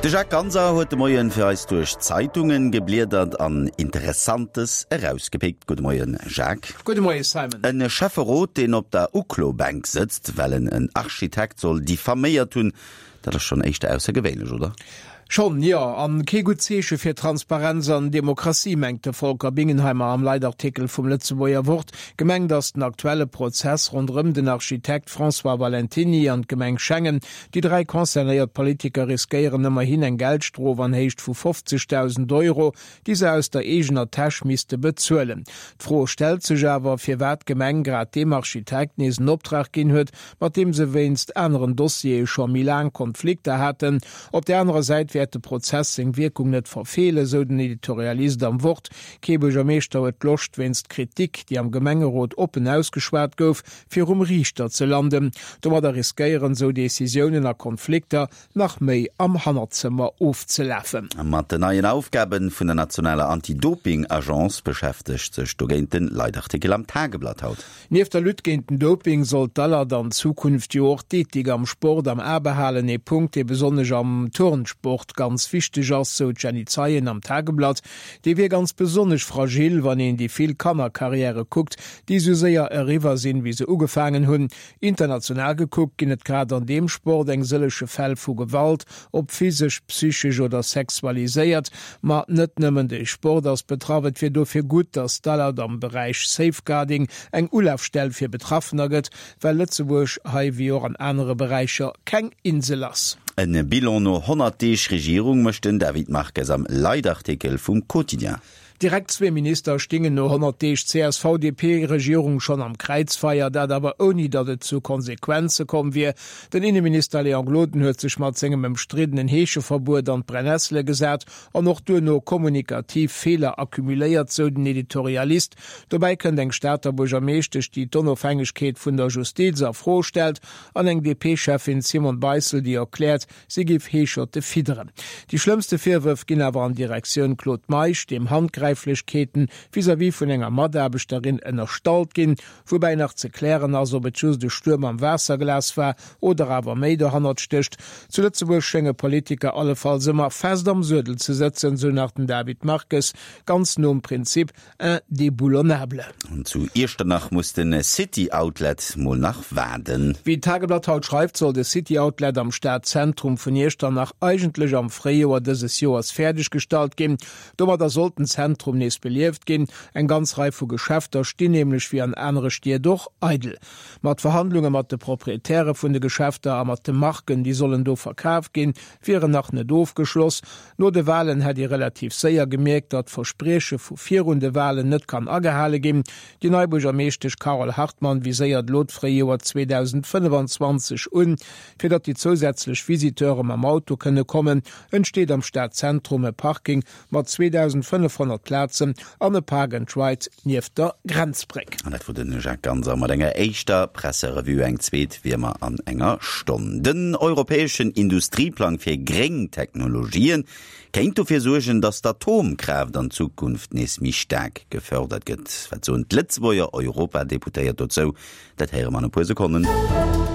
De Jacques Ganser huet de Moien fir eis duerch d'Zeitungen gebliedert an Interessantes erausgepickt. Gudde Moien, Jacques. Gudde Moie, Simon. E Schäfferot, deen op der Uklo-Bänk sëtzt, well en en Architekt soll diffaméiert hunn, dat ass schonn éischter aussergewéinlech, oder? Schonn, jo. An kee gutt Zeeche fir Transparenz an Demokratie, mengt de Volker Bingenheimer am Leitartikel vum Lëtzebuerger Wort. Gemengt ass den aktuelle Prozess ronderëm den Architekt François Valentiny an d'Gemeng Schengen. Déi 3 concernéiert Politiker riskéieren ëmmerhin eng Geldstrof an Héicht vu 50.000 Euro, déi se aus der eegener Täsch misste bezuelen. D'Fro stellt sech awer, firwat d'Gemeng grad deem Architekt nees en Optrag ginn huet, mat deem se wéinst aneren Dossiere scho méi laang Konflikter haten. Op där anerer Säit wäert de Prozess seng Wierkung net verfeelen, sou den Editorialist am Wort. Kee Buergermeeschter huet Loscht, wéinst Kritik, déi am Gemengerot oppen ausgeschwat gouf, virum Riichter ze landen. Domadder riskéieren sou Decisiounen a Konflikter nach méi am Hannerzëmmer ofzelafen. Mat den neien Aufgabe vun der nationaler Anti-Doping-Agence beschäftegt sech dogéint den Leitartikel am Tageblatt haut. Nieft der Lutte géint den Doping soll d'ALAD an Zukunft jo och d'Ethik am Sport am A behalen, ee Punkt, dee besonnesch am Turnsport ganz wichteg ass, sou d'Jenny Zeien am Tageblatt. Dee wier ganz besonnesch fragil, wann een déi vill Kannerkarriäre kuckt, déi sou séier eriwwer sinn, wéi se ugefaangen hunn. International gekuckt ginn et grad an deem Sport eng sëllege Fäll vu Gewalt, ob physesch, psychesch oder sexualiséiert. Ma net nëmmen de Sport ass betraff. Et wier dofir gutt, datt d'ALAD am Beräich Safeguarding eng Ulafstell fir Betraffener gëtt, well Lëtzebuerg hei wéi och an anere Beräicher keng Insel ass. E Bilan no 100 Deeg Regierung mécht den David Marques am Leitartikel vum Quotidien. Direkt zwee Minister stingen no 100 Deeg CSV-DP-Regierung schonn am Kräizfeier, dat awer ouni datt et zu Konsequenze komm wier. Den Inneminister Léon Gloden huet sech mat sengem ëmstriddenen Heescheverbuet an d'Brennessele gesat an och duerno kommunikativ Feeler accumuléiert, sou den Editorialist. Dobäi kënnt eng Stater Buergermeeschtesch, déi d'Onofhängegkeet vun der Justiz a Fro stellt an eng DP-Cheffin Simone Beissel, déi erkläert, Si géif Heescherte fidderen. Déi schlëmmste Virwërf ginn awer an Direktioun Claude Meisch, deem Handgräiflechkeeten vis-à-vis vun enger Mataarbechterin ënnerstallt ginn, woubäi nach ze klären ass, ob et just e Stuerm am Waasserglas war oder awer méi dohannert stécht. Zu Lëtzebuerg schénge Politiker allefalls ëmmer fest am Suedel ze sëtzen, sou nach den David Marques, ganz nom Prinzip, Indéboulonnable. An zu Iechternach muss de City Outlet mol nach waarden. Wéi d'Tageblatt haut schreift, soll de City Outlet am Stadzentrum vun Iechternach eigentlech am Fréijoer dëses Joers fäerdeg gestallt ginn. Domadder sollt den Zentrum nees belieft ginn. Eng ganz Rei vu Geschäfter stinn nämlech wéi an anere Stied och eidel. Ma d'Verhandlunge mat de Proprietäre vun de Geschäfter a mat de Marken, déi sollen do verkaf ginn, wieren nach net ofgeschloss. No de Walen hätt ee relativ séier gemierkt, datt d'Versprieche vu virun de Walen net kann agehale ginn. Déi nei Buergermeeschtesch Carole Hartmann viséiert elo d'Fréijoer 2025 un. Fir datt déi zousätzlech Visiteure mam Auto kënne kommen, entsteet am Stadzentrum e Parking mat 2.500 Plazen an e Park and Ride nieft der Grenzbréck. An dat wor de Jacques Ganser mat enger éischter Presserevue. Eng zweet wéi ëmmer an enger Stonn. Den europäeschen Industrieplang fir gréng Technologien kéint dofir suergen, datt d'Atomkraaft an Zukunft nees méi staark gefördert gëtt. Wat soen d'Lëtzebuerger Europadeputéiert dozou? Dat héiere mer an e puer Sekonnen.